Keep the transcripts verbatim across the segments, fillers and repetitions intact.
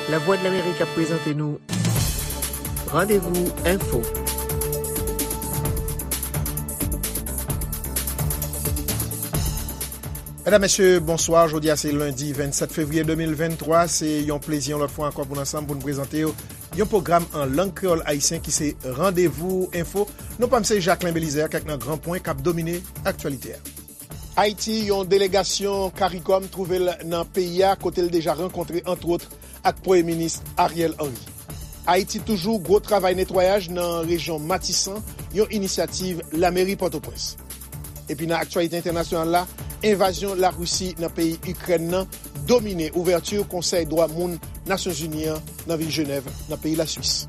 Lavwadlamerik ap prezante nou Randevou Enfo. Medam, mesye, bonswa. Jodi a se lendi vennsèt fevriye de mil venntwa. Se yon plezi yon lòt fwa ankò pou n ansanm pou n prezante w yon pwogram an lang kreyòl ayisyen ki se Randevou Enfo. Non pa m se Jacquelin Belizaire, kèk nan gran pwen k ap domine aktyalite a. Ayiti, yon delegasyon CARICOM twouve l nan peyi a, kote l deja rankontre, antwòt, ak Premye Minis Ariel Henry. Ayiti toujou, gwo travay netwayaj nan rejyon Matisan, yon inisyativ lameri Pòtoprens. Epi nan aktyalite entènasyonal la, envazyon Larisi nan peyi Ikrèn nan domine ouvèti Konsèy Dwa Moun Nasyonzini an nan vil Jenèv, nan peyi Laswis.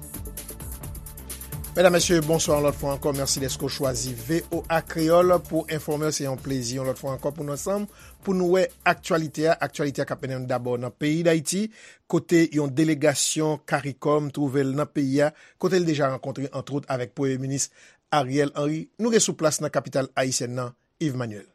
Medam, mesye, bonswa yon lòt fwa ankò. Mèsi dèske w chwazi V O A Kreyòl pou w enfòme w. Se yon plezi yon lòt fwa ankò pou nou ansanm, pou nou wè aktyalite a. Aktyalite a k ap mennen nou dabò nan peyi Dayiti, kote yon delegasyon CARICOM twouve l nan peyi a, kote l deja rankontre, antwòt, avèk Premye Minis Ariel Henry. Nou gen sou plas nan kapital ayisyèn nan, Yves Manuel.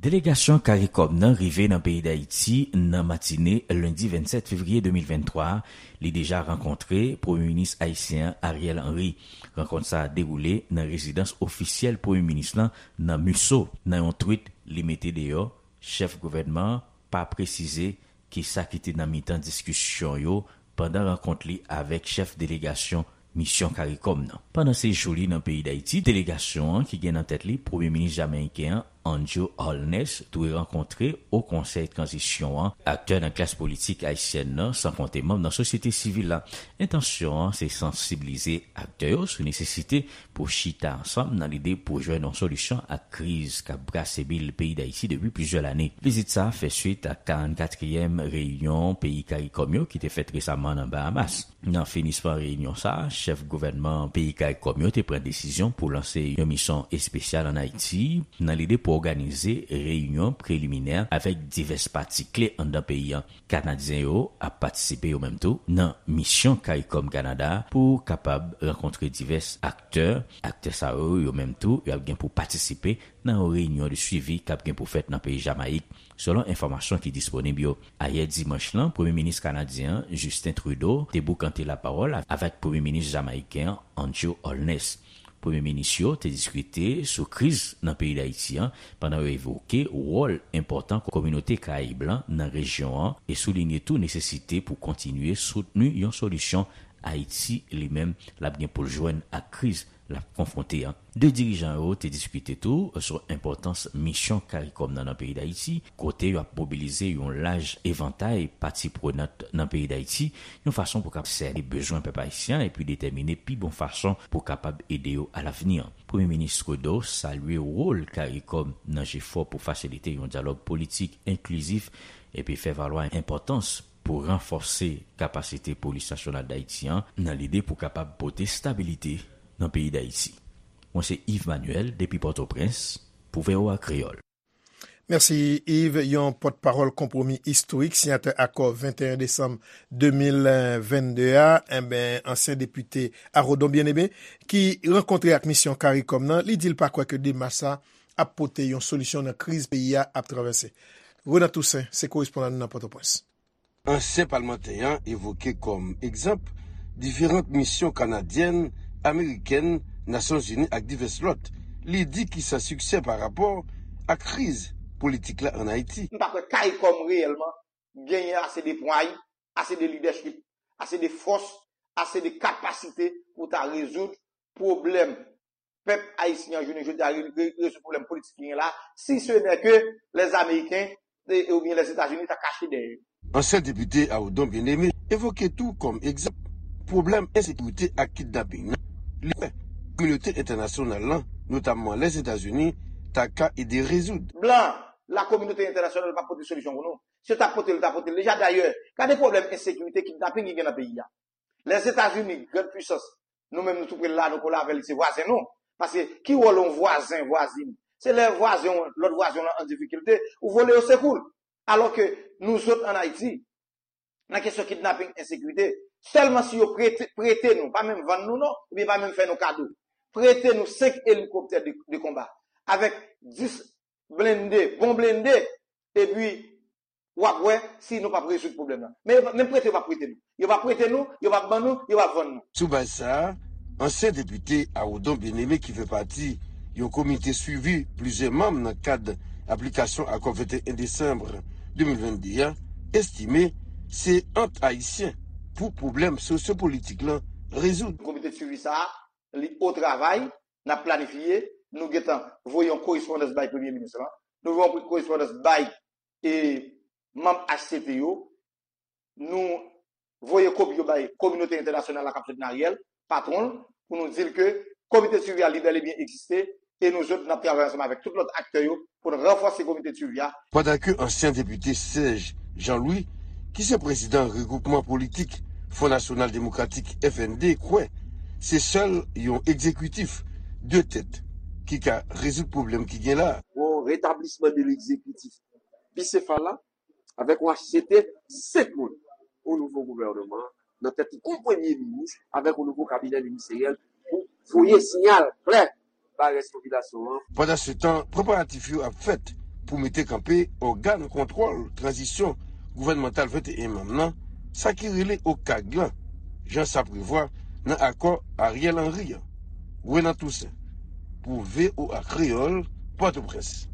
Delegasyon CARICOM nan rive nan peyi Dayiti nan matine lendi vennsèt fevriye de mil venntwa a. Li deja rankontre Premye Minis ayisyen an, Ariel Henry. Rankont sa a dewoule nan rezidans ofisyèl Premye Minis lan nan Musso. Nan yon twit li mete deyò, chèf gouvènman an pa presize kisa ki te nan mitan diskisyon yo pandan rankont li avèk chèf delegasyon misyon CARICOM nan. Pandan sejou li nan peyi Dayiti, delegasyon an, ki gen nan tèt li Premye Minis jamayiken an, Andrew Holness, dwe rankontre Wo Konsèy Tranzisyon an, aktè nan klas politik ayisyèn nan, san konte manm nan sosyete sivil la. Entansyon an se sansibilize aktè yo sou nesesite pou chita ansanm nan lide pou jwenn yon solisyon ak kriz k ap brase bil peyi Dayiti depi plizyè lane. Vizit sa a fè swit ak karannkatriyèm reyinyon peyi CARICOM yo ki te fèt resaman nan Bahamas. Nan finisman reyinyon sa a, chèf gouvènman peyi CARICOM yo te pran desizyon pou lanse yon misyon espesyal ann Ayiti nan lide pou òganize reyinyon preliminè avèk divès pati kle anndan peyi a. Kanadyen yo ap patisipe yo menm tou nan misyon CARICOM Kanada a pou kapab rankontre divès aktè. Aktè sa yo, yo menm tou, y ap gen pou patisipe nan yon reyinyon de swivi k ap gen pou fèt nan peyi Jamayik, selon enfòmasyon ki disponib yo. Ayè dimanch lan, Premye Minis kanadyen an, Justin Trudeau, te boukante lapawòl avèk Premye Minis jamayiken an, Andrew Holness. Premye minis yo te diskite sou kriz nan peyi Dayiti an, pandan yo evoke wòl enpòtan kominote Karayib lan nan rejyon an e soulinye tou nesesite pou kontinye soutni yon solisyon Ayiti li menm l ap gen pou l jwenn ak kriz l ap konfwonte an. De dirijan yo te diskite tou sou enpòtans misyon CARICOM nan nan peyi Dayiti, kote y ap mobilize yon laj evantay pati prenant nan peyi Dayiti, yon fason pou kap sène bezwen pèp ayisyen an epi detèmine pi bon fason pou kapab ede yo alavni an. Premye Minis Trudeau salye wòl CARICOM nan jefò pou fasilite yon dyalòg politik enklizif epi fè valwa enpòtans pou ranfòse kapasite Polis Nasyonal Dayiti an nan lide pou kapab pote stabilite nan peyi Dayiti. Mwen se Yves Manuel depi Pòtoprens pou V O A Kreyòl. Mèsi, Yves. Yon pòtpawòl Konpwomi Istorik, siyatè akò venteyen desanm de mil vennde a, enben, ansyen depite Arodon Bien-Aimé, ki rankontre ak misyon CARICOM nan, li di l pa kwè ke demach sa ap pote yon solisyon nan kriz peyi a ap travèse. Renan Toussaint se korespondan nou nan Pòtoprens. Ansyen palmantè an evoke kòm egzanp diferan misyon kanadyèn, amerikèn, Nasyonzini ak divès lòt. Li di ki san siksè pa rapò ak kriz politik la ann Ayiti. M pa kwè CARICOM reyèlman genyen ase de pway, ase de lidèchip, ase de fòs, ase de kapasite pou ta rezoud pwoblèm pèp ayisyen an jounen jodi a, re- re- rezoud pwoblèm politik ki gen la, si se nè ke lèzameyiken e- oubyen Lèzetazini ta kache dèyè yo. Ansyen depite Arodon Bien-Aimé evoke tou kòm egzanp pwoblèm ensekirite ak kidnaping nan. Li kwè kominote entènasyonal lan, notamman Lèzetazini, ta ka ede rezoud. Blan, lakominote entènasyonal pa pote solisyon pou nou. Si yo ta pote l, yo ta pote l deja. Dayè, gade pwoblèm ensekirite, kidnaping ki gen nan peyi a. Lèzetazini, grann pwisans, nou menm nou tou pre l la, nou kole avè l, se vwazen nou. Paske ki wòl yon vwazen, vwazin? Se lè vwazen w, lòt vwazen w lan an difikilte, ou vole yo sekou l. Alò ke nou zòt ann Ayiti, nan kesyon kidnaping, ensekirite, sèlman si yo prete, prete nou, pa menm vann nou non, oubyen pa menm fè nou kado. Prete nou senk elikoptè de, de konba, avèk dis blende, bon blende, epi w ap wè si nou p ap rezoud pwoblèm nan. Men yo p ap, menm prete yo p ap prete nou. Yo p ap prete nou, yo p ap ban nou, yo p ap vann nou. Sou baz sa a, ansyen depite Arodon Bien-Aimé ki fè pati yon komite swivi plizyè manm nan kad aplikasyon akò venteyen desanm de mil vennde a, estime se ant Ayisyen pou pwoblèm sosyopolitik lan rezoud. Komite de swivi sa a, li o travay, n ap planifye, nou gentan voye yon korespondans bay Premye Minis lan, nou voye yon korespondans bay e manm H C T yo, nou voye kopi yo bay kominote entènasyonal la k ap soutni Ariel, patwon l, pou nou di l ke komite de swivi a li bèl e byen egziste e nou sot n ap travay ansanm avèk tout lòt aktè yo pou n ranfòse komite de swivi a. Pandan ke ansyen depite Serge Jean-Louis, ki se prezidan regwoupman politik Front National Démocratique, F N D, kwè se sèl yon egzekitif de tèt ki ka rezoud pwoblèm ki gen la. Yon retablisman de legzekitif bisefal la, avèk yon H C T senk moun, yon nouvo gouvènman nan tèt li, yon premye minis, avèk yon nouvo kabinè ministeryèl pou voye siyal klè bay rès popilasyon an. Pandansetan, preparatif yo ap fèt pou mete kanpe ògàn kontwòl tranzisyon gouvènmantal venteyen manm nan, sa ki rele OCAG lan, jan sa prevwa nan akò Ariel Henry an. Renan Toussaint, pou V O A Kreyòl, Pòtoprens.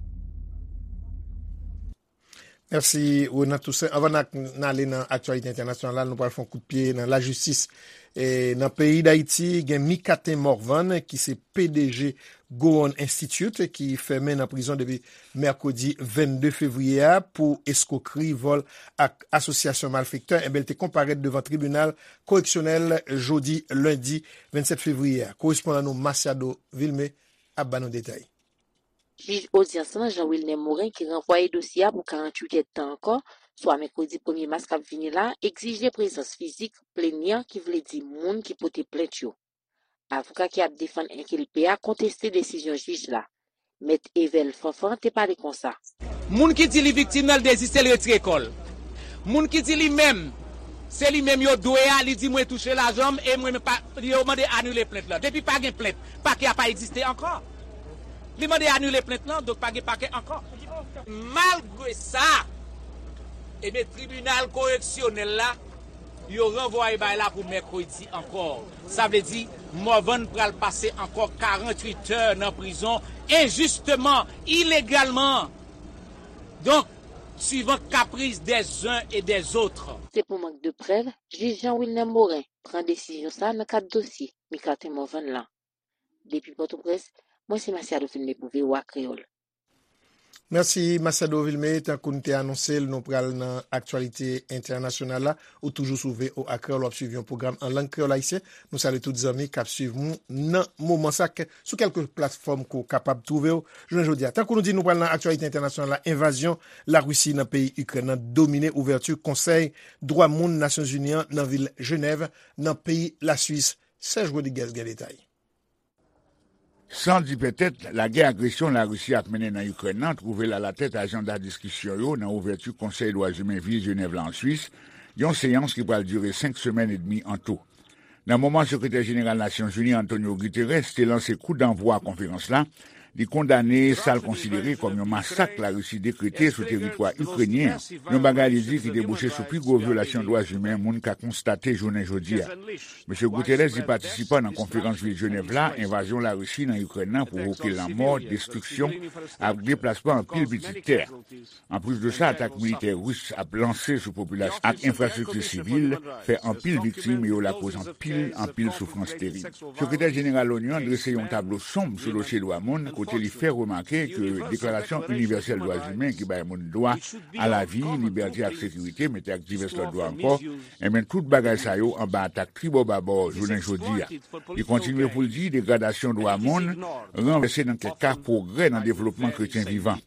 Mèsi, Renan Toussaint. Anvan n ak-, n ale nan aktyalite entènasyonal la, nou pral fè yon kout pye nan lajistis. E, nan peyi Dayiti, gen Micatin Morvan, ki se P D G Gowon Institute, ki fèmen nan prizon depi mèkredi vennde fevriye a pou eskwokri, vòl ak asosyasyon malfektè. Enben, li te konparèt devan tribinal koreksyonèl jodi lendi vennsèt fevriye a. Korespondan nou Masiado Vilmé ap ba nou detay. Jij odyans lan, Jean Wilner Morin, ki ranvwaye dosye a pou karanntuit èdtan ankò, swa mèkredi premye mas k ap vini la, egzije prezans fizik plenyan, ki vle di moun ki pote plent yo. Avoka ki ap defann enkilpe a konteste desizyon jij la. Mèt Evel Fanfan te pale konsa. Moun ki di li viktim nan, l deziste, l retire kò l. Moun ki di li menm, se li menm yo dwe a, li di mwen touche lajan m e mwen pa, yo mande anile plent lan. Depi pa gen plent, pakè a pa egziste ankò. Li mande anile plent lan, donk pa gen pakè ankò. Malgre sa, ebyen, tribinal koreksyonèl la, yo ranvwaye bagay la pou mèkredi ankò. Sa vle di, Morvan pral pase ankò karanntuit è nan prizon enjisteman, ilegalman. Donk, suivant caprice des uns et des autres. Se pou mank de prèv, jij Jean Wilner Morin pran desizyon sa a nan kad dosye Micatin Morvan lan. Depi Pòtoprens, mwen se Masiado Vilmé pou V O A Kreyòl. Mèsi, Masiado Vilmé. Tankou n te anonse l, nou pral nan aktyalite entènasyonal la. Ou toujou sou V O A Kreyòl, w ap swiv yon pwogram an lang kreyòl ayisyen. Nou salye tout zanmi k ap swiv nou nan moman sa, ke, sou kèlke platfòm ke w kapab twouve w jounen jodi a. Tankou nou di, nou pral nan aktyalite entènasyonal la, envazyon Larisi nan peyi Ikrèn nan domine ouvèti Konsèy Dwa Moun Nasyonzini an nan vil Jenèv, nan peyi Laswis. Serge Rodriguez gen detay. San di pètèt, lagè agresyon Larisi ap mennen nan Ikrèn nan twouve l alatèt ajanda diskisyon yo nan ouvèti Konsèy Dwa Imen vil Jenèv la an Swis, yon seyans ki pral dire senk semèn edmi an tou. Nan moman Sekretè Jeneral Nasyonzini Antonio Guterres te lanse kou danvwa konferans la, li kondane sa l konsidere kòm yon masak Larisi dekrete sou teritwa ikrenyen an, yon bagay li di ki debouche sou pi gwo vyolasyon dwa imen moun ka konstate jounen jodi a. Mesye Guterres di patisipan nan konferans vil Jenèv la, envazyon Larisi nan Ikrèn nan pwovoke lanmò, destriksyon ak deplasman anpil pitit tè. Anplis de sa, atak militè ris ap lanse sou popilasyon ak enfrastrikti sivil fè anpil viktim e yo lakoz anpil, anpil soufrans terib. Sekretè Jeneral Loni an drese yon tablo sonb sou dosye dwa moun, kote li fè remake ke Deklarasyon Inivèsèl Dwa Imen ki bay moun dwa a lavi, libète ak sekirite, mete ak divès lòt dwa ankò, enben, tout bagay sa yo anba atak tribòbabò jounen jodi a. Li kontinye pou l di degradasyon dwa moun ranvèse nan kèk ka pwogrè nan devlopman kretyen vivan.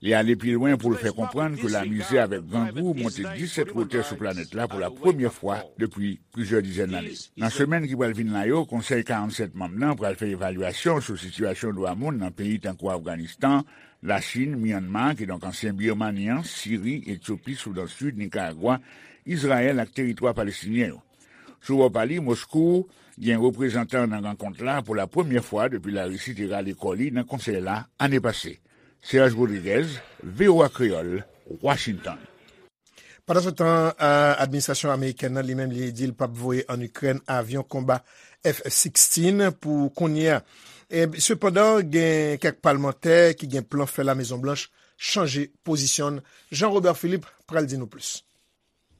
Li ale pi lwen pou l fè konprann ke lamizè avèk grangou monte disèt wotè sou planèt la pou la premyè fwa depi plizyè dizèn lane. Nan semèn ki pral vin la yo, Konsèy karannsèt manm nan pral fè evalyasyon sou sitiyasyon dwa moun nan peyi tankou Afganistan, Lachin, Myanma, kidonk ansyen Birmani an, Siri, Etyopi, Soudan Sid, Nikaragwa, Izrayèl ak teritwa palestinyen yo. Sou bò pa li, Moskou gen reprezantan nan rankont la pou la premyè fwa depi Larisi te rale kò li nan konsèy la ane pase. Serge Rodriguez, V O A Kreyòl, Washington. Pandansetan, a, administrasyon amerikèn nan, li menm, li di l p ap voye ann Ikrèn avyon konba F sixteen pou kounye a. E, sepandan, gen kèk palmantè ki gen plan fè Lamezon Blanch chanje pozisyon l. Jean Robert Philippe pral di nou plis.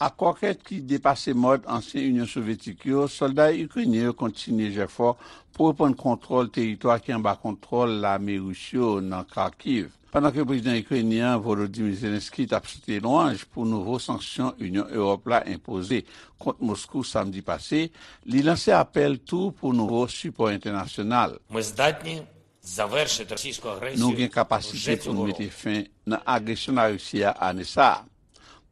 Ak konkèt ki depase mòd ansyen Inyon Sovyetik yo, sòlda ikrenyen yo kontinye jèfò pou reprann kontwòl teritwa ki anba kontwòl lame ris yo nan Kharkiv. Pandan ke prezidan ikrenyen an, Volodymyr Zelensky, t ap chante lwanj pou nouvo sanksyon Inyon Ewòp la enpoze kont Moskou samdi pase, li lanse apèl tou pou nouvo sipò entènasyonal. Ми здатні завершити російську агресію вже цього року. Nou gen kapasite pou n mete fen nan agresyon Larisi a ane sa a.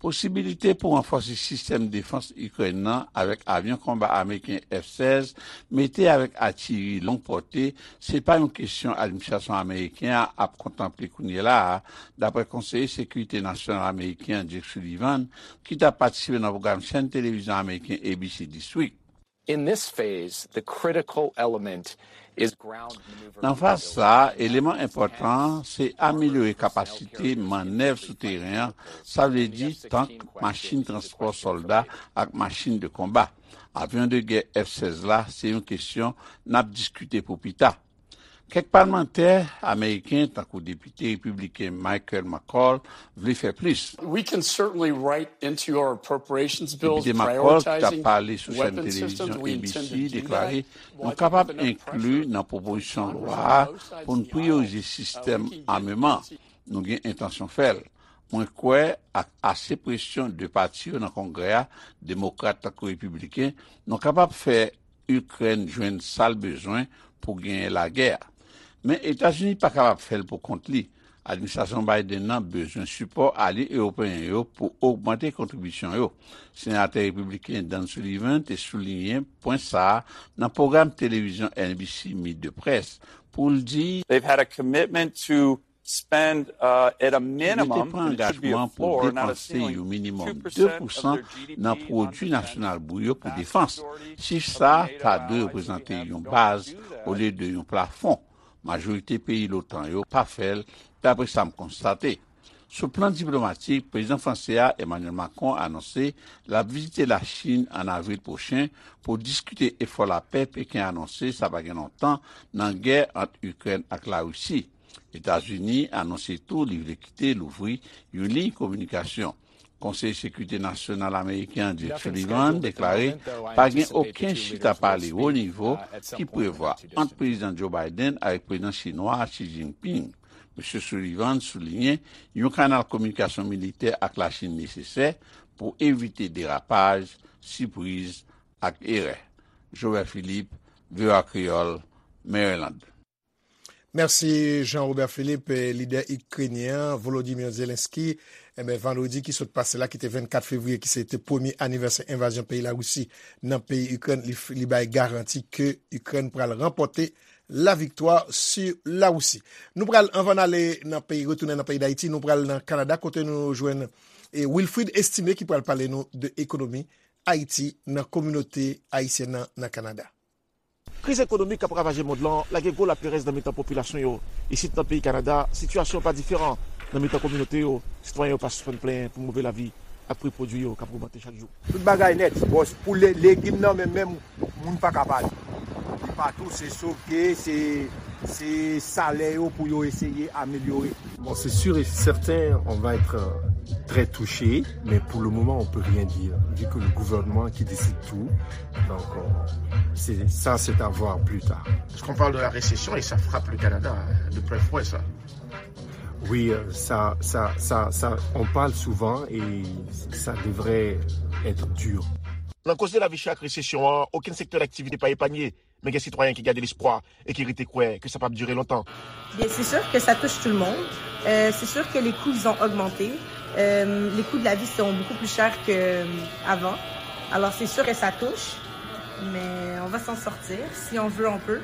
Posibilite pou ranfòse sistèm defans Ikrèn nan avèk avyon konba ameriken F sèz mete avèk atiyeri long pòte, se pa yon kesyon administrasyon ameriken an ap kontanple kounye la a, dapre konseye sekirite nasyonal ameriken an Jake Sullivan, ki t ap patisipe nan pwogram chèn televizyon ameriken A B C This Week. In this phase, the critical element is ground maneuver. Nan faz sa a, eleman enpòtan an se amelyore kapasite mannèv sou teren an, sa vle di tank, machin transpò sòlda ak machin de konba. Avyon de gè F sèz la se yon kesyon n ap diskite pou pita. Kèk palmantè ameriken, tankou depite repibliken Michael McCaul, vle fè plis. We can certainly write into our appropriations bills. Depite McCaul, ki t ap pale sou chèn televizyon A B C, deklare, nou kapab enkli nan pwopozisyon lwa a pou n priyorize sistèm ameman. Nou gen entansyon fè l. Mwen kwè, ak ase presyon de pati yo nan Kongrè a, demokrat tankou repibliken, nou kapab fè Ikrèn jwenn sa l bezwen pou genyen lagè a. Men Etazini pa kapab fè l pou kont li. Administrasyon Biden nan bezwen sipò alye ewopeyen yo pou ogmante kontribisyon yo. Senatè repibliken Dan Sullivan te souliyen pwen sa a nan pwogram televizyon N B C Meet the Press pou l di, They've had a commitment to spend, uh, at a minimum, and it should be a floor, not a ceiling, two percent of their G D P on defense. Yo te pran angajman pou depanse yon minimòm de pousan nan pwodui nasyonal bout yo pou defans. Chif sa a ta dwe reprezante yon baz olye de yon plafon. Majorite peyi l'OTAN yo pa fè l, dapre sa m konstate. Sou plan diplomatik, prezidan franse a, Emmanuel Macron, anonse l ap vizite Lachin an avril pwochen pou diskite efò lapè Peken anonse sa pa gen lontan nan gè ant Ikrèn ak Larisi. Etazini anonse tou li vle kite louvri yon liy kominikasyon. Konseye Sekirite Nasyonal ameriken an, Jake Sullivan, deklare pa gen okenn chita pale wo nivo ki prevwa ant Prezidan Joe Biden avèk Prezidan Chinwa a Xi Jinping. Mesye Sullivan souliyen yon kanal kominikasyon militè ak Lachin nesesè pou evite derapaj, sipriz ak erè. Jobert Philippe, V O A Kreyòl, Maryland. Mèsi Jean Robert Philippe. Lidè ikrenyen an, Volodymyr Zelensky, enben, vandredi ki sot pase la, ki te vennkat fevriye, ki se te premye anivèsè envazyon peyi Larisi nan peyi Ikrèn, li, li bay garanti ke Ikrèn pral ranpòte laviktwa sou Larisi. Nou pral, anvan n ale nan peyi, retounen nan peyi Dayiti, nou pral nan Kanada, kote nou jwenn, e, Wilfrid Estimé, ki pral pale nou de ekonomi Ayiti nan kominote ayisyèn nan, nan Kanada. Kriz ekonomik k ap ravaje mond lan lage gwo laperèz nan mitan popilasyon yo. Isit nan peyi Kanada, sitiyasyon an pa diferan. Nan mitan kominote yo, sitwayen yo pa sispann plenyen pou move lavi ak pri pwodui yo k ap ogmante chak jou. Tout bagay nèt, bòs, pou le-, legim nan menm, menm, moun pa ka pale. Li pa tou, se soke, se, se salè yo pou yo eseye amelyore. Bon, c'est sûr et certain, on va être, euh, très touché, mais pour le moment, on peut rien dire, vu que le gouvernement qui décide tout, donc, euh, c'est, ça, c'est à voir plus tard. Parce qu'on parle de la récession et ça frappe le Canada, hein, de plein fouet, ça. Oui, euh, ça, ça, ça, ça, on parle souvent et ça devrait être dur. Nan koze lavi chè ak resesyon an, okenn sektè daktivite pa epanye, men gen sitwayen ki gade lespwa e ki rete kwè ke sa p ap dire lontan. Bien, c'est sûr que ça touche tout le monde. Euh, c'est sûr que les coûts, ils ont augmenté. Euh, les coûts de la vie sont beaucoup plus chers qu'avant. Alors, c'est sûr que ça touche, mais on va s'en sortir. Si on veut, on peut.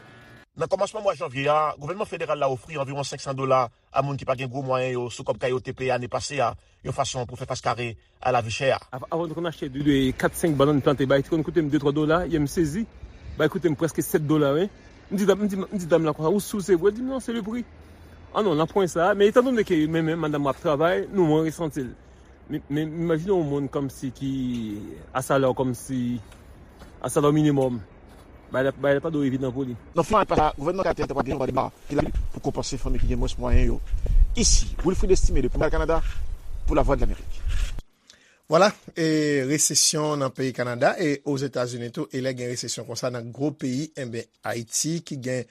Nan kòmansman mwa janvye a, gouvènman federal la ofri anviwon senk san dola a moun ki pa gen gwo mwayen yo sou kòb kay yo te peye ane pase a, yon fason pou fè fas kare a lavi chè a. Av-, avan nou konn achte de, de kat, senk bannann plante, bay te konn koute m de, twa dola, yè m sezi. Bay koute m prèske sèt dola, wi. M di dam, m di, m di dam lan konsa, "Ou sou, se vre?" Li di m, "Non, c'est le prix." An non, nan pwen sa, men etandone ke mwen menm, madanm mwen ap travay, nou mwen resanti l. Men, men imajine yon moun kòmsi ki a salè kòmsi a salè minimòm. Bagay la, bagay la pa dwe evidan pou li. Nan fwa pa sa, gouvènman Kayitè te pral gen yon deba ki la pou konpanse fanmi ki gen mwens mwayen yo. Isi, Wilfrid Estimé depi Montréal, Kanada, pou Lavwadlamerik. Vwala, e resesyon nan peyi Kanada e Ozetazini tou, e lè gen resesyon konsa nan gwo peyi, enben, Ayiti ki gen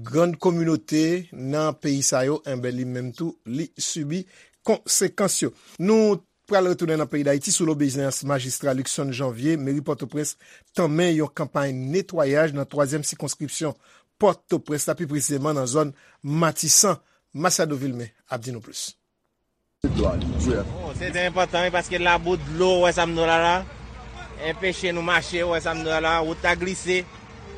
grann kominote nan peyi sa yo, enben, li menm tou, li sibi konsekans yo. Nou pral retounen nan peyi Dayiti sou lobeziyans majistra Luckson Janvier, meri Pòtoprens tanmen yon kanpay netwayaj nan twazyèm sikonskripsyon Pòtoprens la, pi presizeman nan zòn Matisan. Machado Vilmé ap di nou plis. Oh, se trè enpòtan, wi, paske labou, dlo, ou wè sa m di w la la, enpeche nou mache, ou wè sa m di w la la, wout la glise,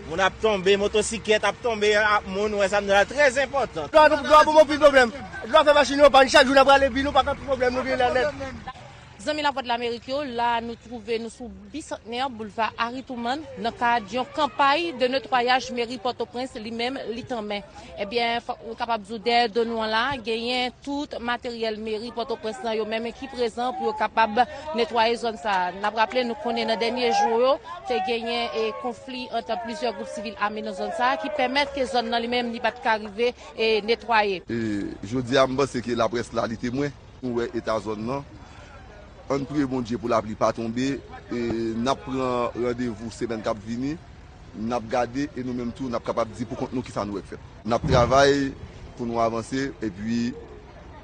moun ap tonbe, motosiklèt ap tonbe, ap moun, ou wè sa m di w la, trè enpòtan. Dlo a, dlo a ban m anpil pwoblèm. Dlo a fè machin yo pann, chak jou n ap rale bi, nou pa konn pwoblèm nou gen la nèt. Zanmi Lavwadlamerik yo, la nou twouve nou sou Bisantnè, Boulva Harry Truman, nan kad yon kanpay de netwayaj meri Pòtoprens li menm li tanmen. Ebyen, fòk nou kapab di w dèyè do nou an la, genyen tout materyèl meri Pòtoprens lan yo menm ki prezan pou yo kapab netwaye zòn sa a. N ap raple, nou konnen nan dènye jou yo, te genyen e konfli ant plizyè gwoup sivil ame nan zòn sa a ki pèmèt ke zòn nan li menm li pa t ka rive e netwaye. E jodi a, m panse ke laprès la, li temwen. Nou wè eta zòn nan. Ann priye Bondye pou lapli pa tonbe. E n ap pran randevou semèn k ap vini. N ap gade e nou menm tou, n ap kapab di pou kont nou kisa nou wè k fèt. N ap travay pou nou avanse epi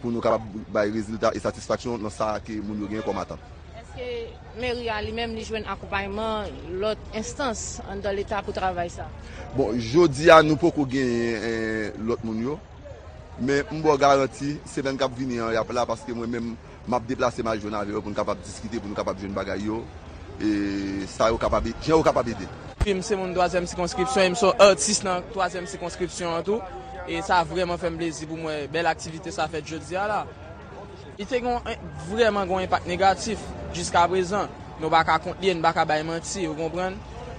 pou nou kapab bay rezilta e satisfaksyon nan sa ke moun yo genyen kòm atant. Èske meri a li menm li jwenn akonpayman lòt enstans anndan Leta pou travay sa? Bon, jodi a, nou poko genyen, eh, lòt moun yo. Men m ba w garanti, semèn k ap vini an, y ap la, paske mwen menm, m ap deplase m al jwenn avè yo pou n kapab diskite, pou nou kapab jwenn bagay yo, e sa yo kapab, jan yo kapab ede. Epi m se moun twazyèm sikonskripsyon, e m se yon atis nan twazyèm sikonskripsyon an tou. E sa vrèman fè m plezi pou m wè bèl aktivite sa fèt jodi a la. Li te gon, vrèman gon enpak negatif jiskaprezan. Nou pa ka kont li, nou pa ka bay manti, ou konprann?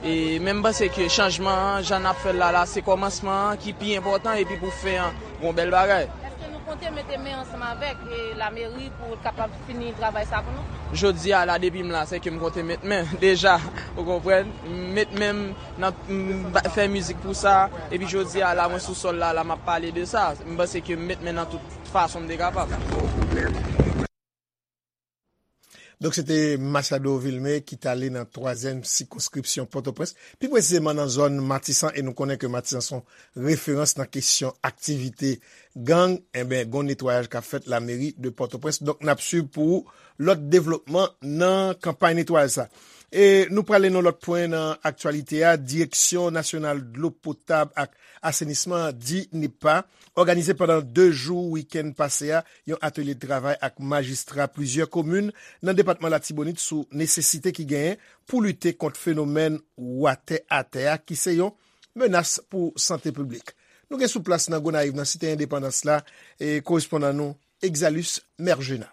E men m panse ke chanjman an, jan n ap fè l la, la, se kòmansman an ki pi enpòtan epi pou fen an, gon bèl bagay. Èske nou konte mete men ansanm avèk, e, lameri pou kapab fini travay sa pou nou? Jodi a la, depi m la, se ke m konte met men deja, ou konprann? Met men m nan, m ba- fè mizik pou sa, epi jodi a la, mwen sou sòl la, la, m ap pale de sa. M panse ke m met men nan tout fason m te kapab. Donk, se te Machado Vilmé ki t ale nan twazyèm sikonskripsyon Pòtoprens, pi presizeman nan zòn Matisan, e nou konnen ke Matisan se yon referans nan kesyon aktivite gang. Enben, gon netwayaj k ap fèt lameri de Pòtoprens. Donk, n ap swiv pou ou lòt devlopman nan kanpay netwayaj sa. E nou prale nan lòt pwen nan aktyalite a. Direksyon Nasyonal Dlo Potab ak Asenisman, DINEPA, òganize pandan de jou wikenn pase a yon atelye de travay ak majistra plizyè komin nan depatman Latibonit sou nesesite ki genyen pou lite kont fenomèn watè atè a, ki se yon menas pou sante piblik. Nou gen sou plas nan Gonayiv, nan Site Endepandans la, e korespondan nou, Exalus Mergena.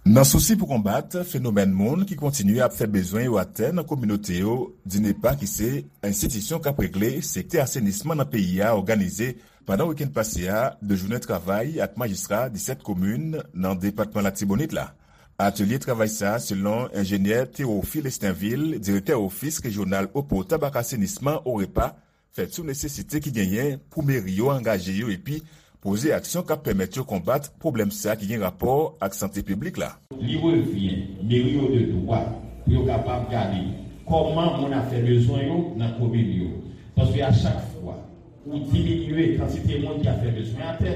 Nan sousi pou konbat fenomèn moun ki kontinye ap fè bezwen yo atè nan kominote yo, DINEPA, ki se enstitisyon k ap regle sektè asenisman nan peyi a, òganize pandan wikenn pase a de jounen travay ak majistra disèt komin nan depatman Latibonit la. Atelye travay sa a, selon enjenyè Théophile Estinvil, direktè ofis rejyonal eau potable ak asenisman, OREPA, fèt sou nesesite ki genyen pou meri yo angaje yo epi poze aksyon k ap pèmèt yo konbat pwoblèm sa a ki gen rapò ak sante piblik la. Li revyen meri yo de dwa pou yo kapab gade kòman moun ap fè bezwen yo nan komin yo. Paske a chak fwa ou diminye kantite moun ki ap fè bezwen atè,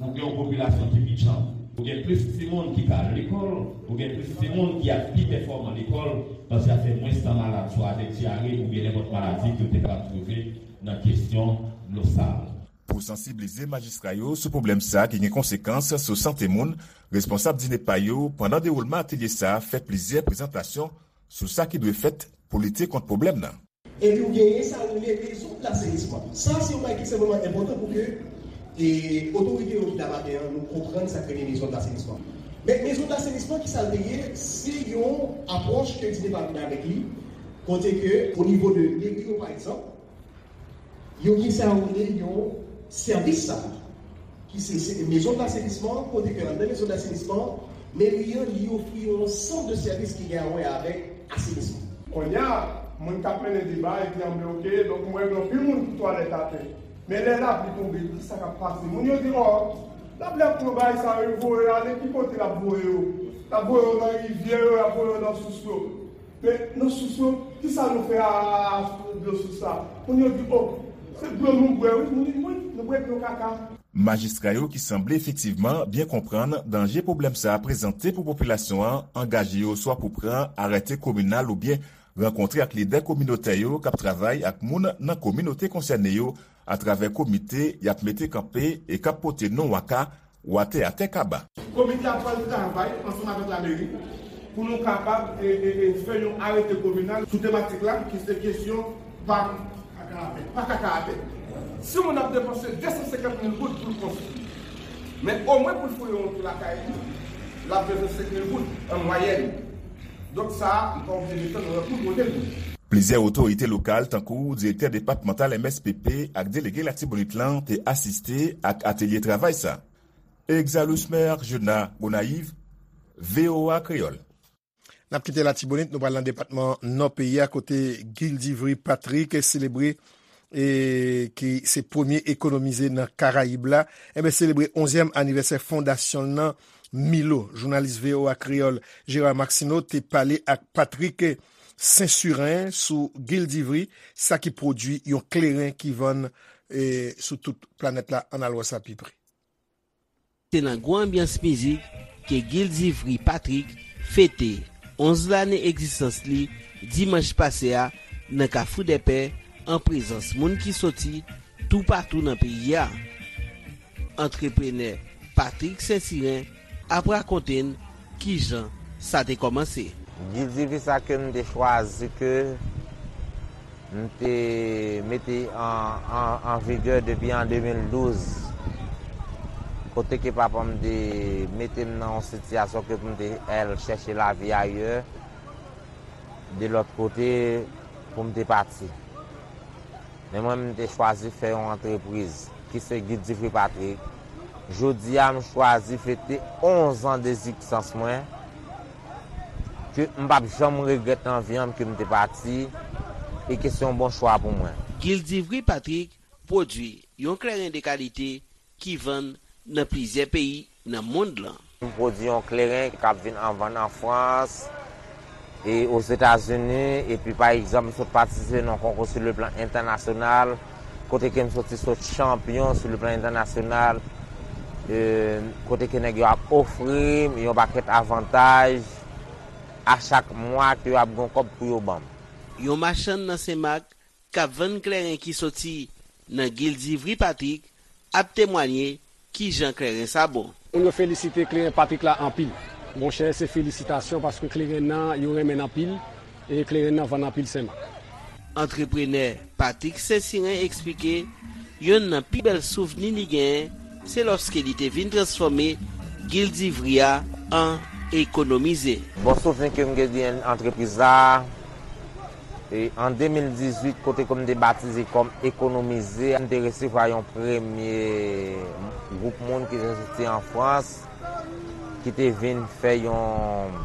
ou gen yon popilasyon ki pi djanm. Ou gen plis timoun ki ka al lekòl, ou gen plis timoun ki ap pi pèfòman lekòl, paske y ap fè mwens tan malad, swa avèk dyare oubyen nenpòt maladi ke yo te kapab twouve nan kesyon dlo sal. Pou sansiblize majistra yo sou pwoblèm sa a ki gen konsekans sou sante moun, responsab DINEPA yo, pandan dewoulman atelye sa a, fè plizyè prezantasyon sou sa ki dwe fèt pou lite kont pwoblèm nan. Epi ou genyen sa yo rele maison d'assainissement. Sa se yon bagay ki ekstrèmeman enpòtan pou ke, e, otorite yo ki la maten an, nou konprann sa k rele maison d'assainissement. Men maison d'assainissement, ki sa l te ye? Se yon apwòch ke DINEPA vin avèk li, kote ke, o nivo de meri yo, pa egzanp, yo gen sa yo rele yon sèvis sa, ki se, se maison d'assainissement, kote ke anndan maison d'assainissement, Meri an, li ofri yon ansanm de sèvis ki gen a wè avèk asenisman. Kounye a, moun k ap mennen deba, yo te anble, oke, donk, m wè gen anpil moun pou twalèt atè. Men lè lapli tonbe, ki sa k ap pase? Moun yo di, ò, lapli ap pran bagay sa yo, voye yo ale, ki kote l ap voye yo? L ap voye yo nan rivyè yo, l ap voye yo nan sous yo. Men nan sous yo, ki sa nou fè a, a, a dlo sous la? Moun yo di, o, se dlo nou bwè, wi. Moun di, wi, nou bwè dlo kaka. Majistra yo ki sanble efektivman byen konprann danje pwoblèm sa a prezante pou popilasyon an, angaje yo swa pou pran arete kominal oubyen rankontre ak lidè kominotè yo k ap travay ak moun nan kominote konsène yo atravè komite y ap mete kanpe e k ap pote non Waka, Watè Atè Kaba. Komite a pral travay ansanm avèk lameri pou nou kapab e, e, e, fè yon arete kominal sou tematik la, ki se kesyon pa, pa kaka atè. Si yon moun ap depanse de san senkant mil goud pou l konstwi, men omwen pou l fouye yon twou lakay li, l ap bezwen senk mil goud an mwayèn. Donk sa a, m pa oblije desann nan tout kote l. Plizyè otorite lokal, tankou direktè depatmantal M S P P ak delege Latibonit lan, te asiste ak atelye travay sa. Exalus Mer, Juna, Gonayiv, V O A Kreyòl. N ap kite Latibonit, nou pral nan depatman Nò peyi a, kote Gildivry Patrick selebre, e, ki se premye ekonomize nan Karayib la, enben, selebre onzyèm anivèsè fondasyon l nan Milo. Jounalis V O A Kreyòl Gérard Maxineau te pale ak Patrick Saint-Surin sou Gildivry, sa ki pwodui yon kleren ki vann, e, sou tout planèt la. Ann al wè sa pi pre. Se nan gwo anbyans mizik ke Gildivry Patrick fete onz lane egzistans li dimanch pase a nan Kafou Dèpè, an prezans moun ki soti toupatou nan peyi a. Antreprenè Patrick Saint-Cyrin ap rakonte n kijan sa te kòmanse. Gildivry sa ke m te chwazi ke m te mete an, an, an vigè depi an de mil douz, kote ke papa m te mete m nan yon sitiyasyon ke pou m te al chèche lavi ayè, de lòt kote, pou m te pati. Men mwen, m te chwazi fè yon antrepriz, ki se Gildivry Patrick. Jodi a, m chwazi fete onz an dezistans mwen, ke m p ap janm regrèt nan vi an m ke m te pati, e ke se yon bon chwa pou mwen. Gildivry Patrick pwodui yon kleren de kalite ki vann nan plizyè peyi nan mond lan. M pwodui yon kleren k ap vin an vann an Frans e Ozetazini, epi pa egzanp, m sot patisipe nan yon konkou sou le plan entènasyonal, kote ke m soti sot chanpyon sou le plan entènasyonal, e, kote ke nèg yo ap ofri m yon pakèt avantaj a chak mwa ke yo ap gen yon kòb pou yo ban m. Yon machann nan Senmak k ap vann kleren ki soti nan Gildivry Patrick ap temwanye kijan kleren sa bon. Moun yo felisite kleren Patrick la anpil. Monchè, se felisitasyon paske kleren nan, yo renmen l anpil e kleren nan vann anpil Senmak. Antreprenè Patrick Saint-Cyrin eksplike yonn nan pi bèl souvni li genyen se lòske li te vin transfòme Gildivry a an Ekonomize. Bon souvni ke m gen de antrepriz la, e, an de mil dizuit, kote ke m te batize kòm Ekonomize, m te resevwa yon premye gwoup moun ki te soti an Frans, ki te vin fè yon,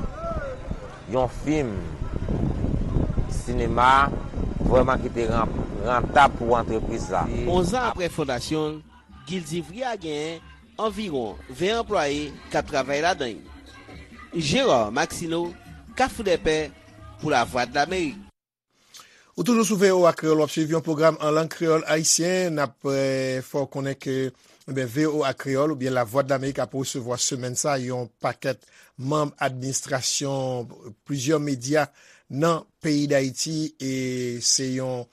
yon fim sinema, vrèman ki te ran-, rantab pou antrepriz la. Onz an apre fondasyon l, Gildivry a genyen anviwon ven anplwaye k ap travay ladan l. Gérard Maxineau, Kafou Dèpè, pou Lavwadlamerik. Ou toujou sou V O A Kreyòl, w ap swiv yon pwogram an lang kreyòl ayisyen. N ap, eh, fè w konnen ke, ebyen, V O A Kreyòl oubyen Lavwadlamerik ap resevwa semèn sa a yon pakèt manm administrasyon plizyè medya nan peyi Dayiti, e se yon,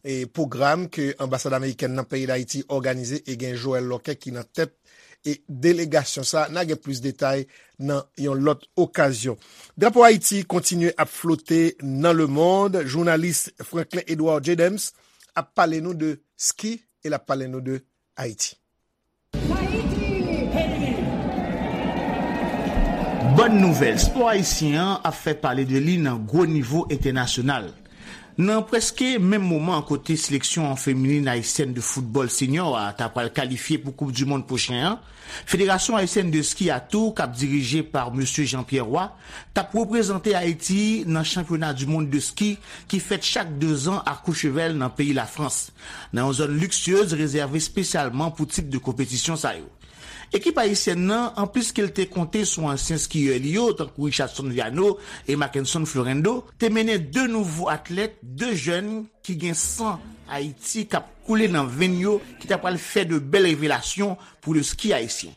e, pwogram ke anbasad amerikèn nan peyi Dayiti òganize e gen Joël Lorquet ki nan tèt e delegasyon sa. N a gen plis detay nan yon lòt okazyon. Drapo Ayiti kontinye ap flote nan lemonn. Jounalis Franklin Edouard Jedems ap pale nou de ski e l ap pale nou de Ayiti. Bòn nouvèl, spò ayisyen an ap fè pale de li nan gwo nivo entènasyonal. Nan prèske menm moman kote seleksyon feminin ayisyèn de foutbòl senior a ta pral kalifye pou Koup di Mond pwochen an, Federasyon Ayisyèn de Ski a tou, k ap dirije pa Mesye Jean-Pierre Roy, t ap reprezante Ayiti nan chanpyona di mond de ski ki fèt chak dezan a Courchevel nan peyi Lafrans, nan yon zòn liksyez rezève espesyalman pou tip de konpetisyon sa yo. Ekip ayisyèn nan, anplis ke l te konte sou ansyen skiyè li yo, tankou Richardson Viano e Mackenson Florendo, te mennen de nouvo atlèt, de jèn ki gen san Ayiti k ap koule nan venn yo, ki ta pral fè de bèl revelasyon pou le ski ayisyen.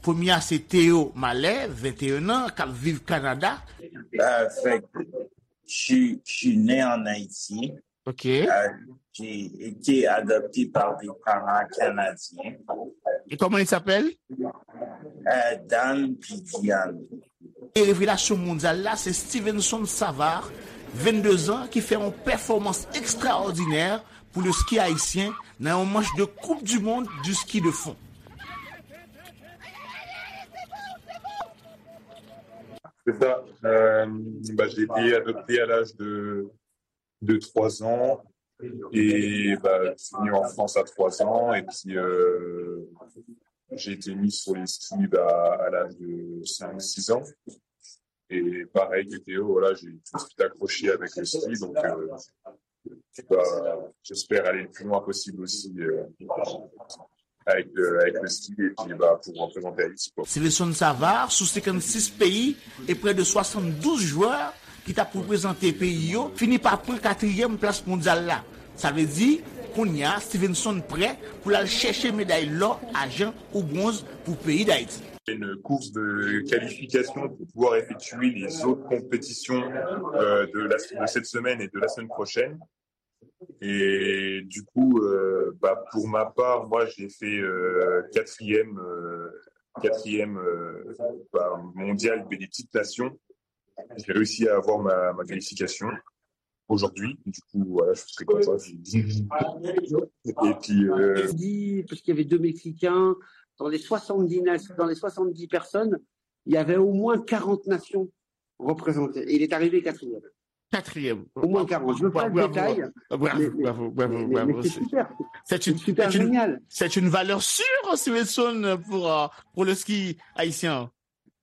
Premye a se Théo Mallet, venteyen an, k ap viv Kanada. Avèk, je, je suis né en Haïti. Ok. Euh, j'ai été adopté par des parents canadiens. Et comment il s'appelle? Euh, Dan Pidian. E revelasyon mondyal la, se Stevenson Savard, vennde zan, ki fè yon pèfòmans ekstraòdinè pou le ski ayisyen nan yon manch de Coupe du Monde du ski de fond. C'est ça. Euh, bah, j'ai été adopté à l'âge de, de trois ans. Et bah, je suis venu en France à trois ans. Et puis, euh, j'ai été mis sur les skis bah, à l'âge de cinq, six ans. Et pareil que Théo, voilà, j'ai tout de suite accroché avec le ski. Donc, euh, bah, j'espère aller le plus loin possible aussi euh, avec, euh, avec le ski et puis bah, pour représenter Haïti. Quoi. Stevenson Savard, sou senkannsis peyi e prè de swasanndouz jwè ki t ap reprezante peyi yo, fini pa pran katriyèm plas mondyal la. Sa vle di, kounye a, Stevenson prè pou l al chèche meday lò, ajan ou bwonz pou peyi Dayiti. Une course de qualification pour pouvoir effectuer les autres compétitions euh, de, la, de cette semaine et de la semaine prochaine. Et du coup, euh, bah, pour ma part, moi, j'ai fait euh, quatrième, euh, quatrième euh, bah, mondial des petites nations. J'ai réussi à avoir ma, ma qualification aujourd'hui. Du coup, voilà, je suis très content. Et puis, euh, dit, parce qu'il y avait deux Mexicains, dans les soixante-dix, na- dans les soixante-dix personnes, il y avait au moins quarante nations représentées. Et il est arrivé quatrième. Quatrième. Au moins quarante. Je ne veux pas le Bravo, détail, bravo, mais, bravo, bravo, mais- mais- bravo. mais c'est super. C'est C'est une, super c'est une, génial. c'est une valeur sûre, Stevenson, pour, euh, pour le ski haïtien.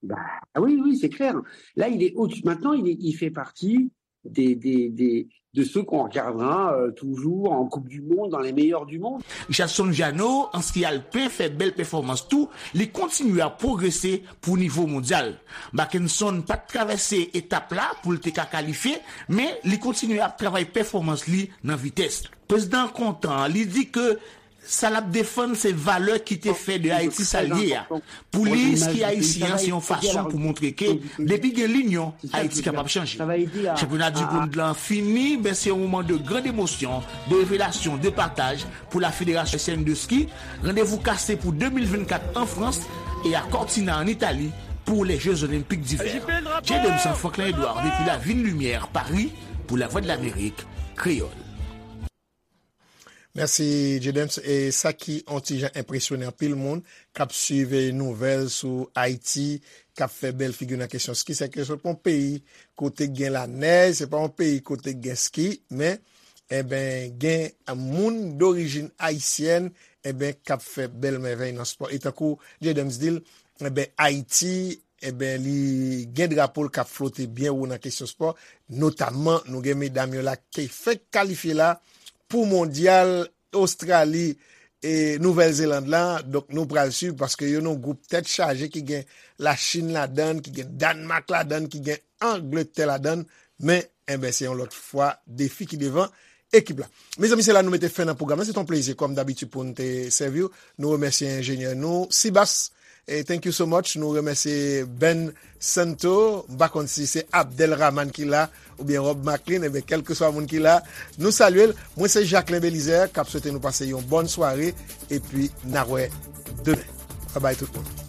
Bah oui, oui, c'est clair. Là, il est au-dessus. Maintenant, il, est- il fait partie des, des, des- de ceux qu'on regardera euh, toujours en Coupe du Monde, dans les meilleurs du monde. Richardson Viano, an ski alpen, fè bèl pèfòmans tou, li kontinye ap pwogrese pou nivo mondyal. Mackenson pa t travèse etap la pou l te ka kalifye, men li kontinye ap travay pèfòmans li nan vitès. Prezidan kontan, li di ke sa l ap defann se valè ki te fè de Ayiti sa l ye a. Pou li, ski ayisyen an se yon fason pou montre ke depi gen linyon, Ayiti kapab chanje. Chanpyona di mond lan fini, men se yon moman de grand emosyon, de revelasyon, de pataj pou la Fédération Haïtienne de Ski. Randevou kase pou de mil vennkat an Frans e a Cortina an Itali pou les Jeux Olympiques d'hiver. J Dems Franklin Edouard depi la Ville Lumière, Paris, pou La Voix de l'Amérique, Kreyòl. Mèsi, J Dems. E sa ki on ti jan enpresyone anpil moun k ap swiv nouvèl sou Ayiti, k ap fè bèl figi nan kesyon ski, se ke se pa yon peyi kote gen lanèj, se pa yon peyi kote gen ski, men, enben, gen moun dorijin ayisyèn, enben, k ap fè bèl mèvèy nan spò. E tankou J Dems di l, enben, Ayiti, enben, li gen drapo l k ap flote byen wo nan kesyon spò, notamman, nou gen medam yo la ki fèk kalifye la pou mondyal Ostrali e Nouvèl Zeland la. Donk, nou pral swiv paske yo nan gwoup tèt chaje ki gen Lachin ladann, ki gen Dannmak ladann, ki gen Angletè ladann. Men, enben, se yon lòt fwa defi ki devan ekip la. Mezanmi, se la nou mete fen nan pwogram lan. Se t on plezi, kòm dabitid, pou n te sèvi w. Nou remèsye enjenyè nou, Sibas. E thank you so much. Nou remèsye Ben Santo. M pa konn si se Abdel Rahman ki la oubyen Rob Maclean. Enben, kèlkeswa moun ki la, nou salye l. Mwen, se Jacquelin Belizaire k ap swete nou pase yon bòn sware. Epi, n a wè demen. Babay tout moun.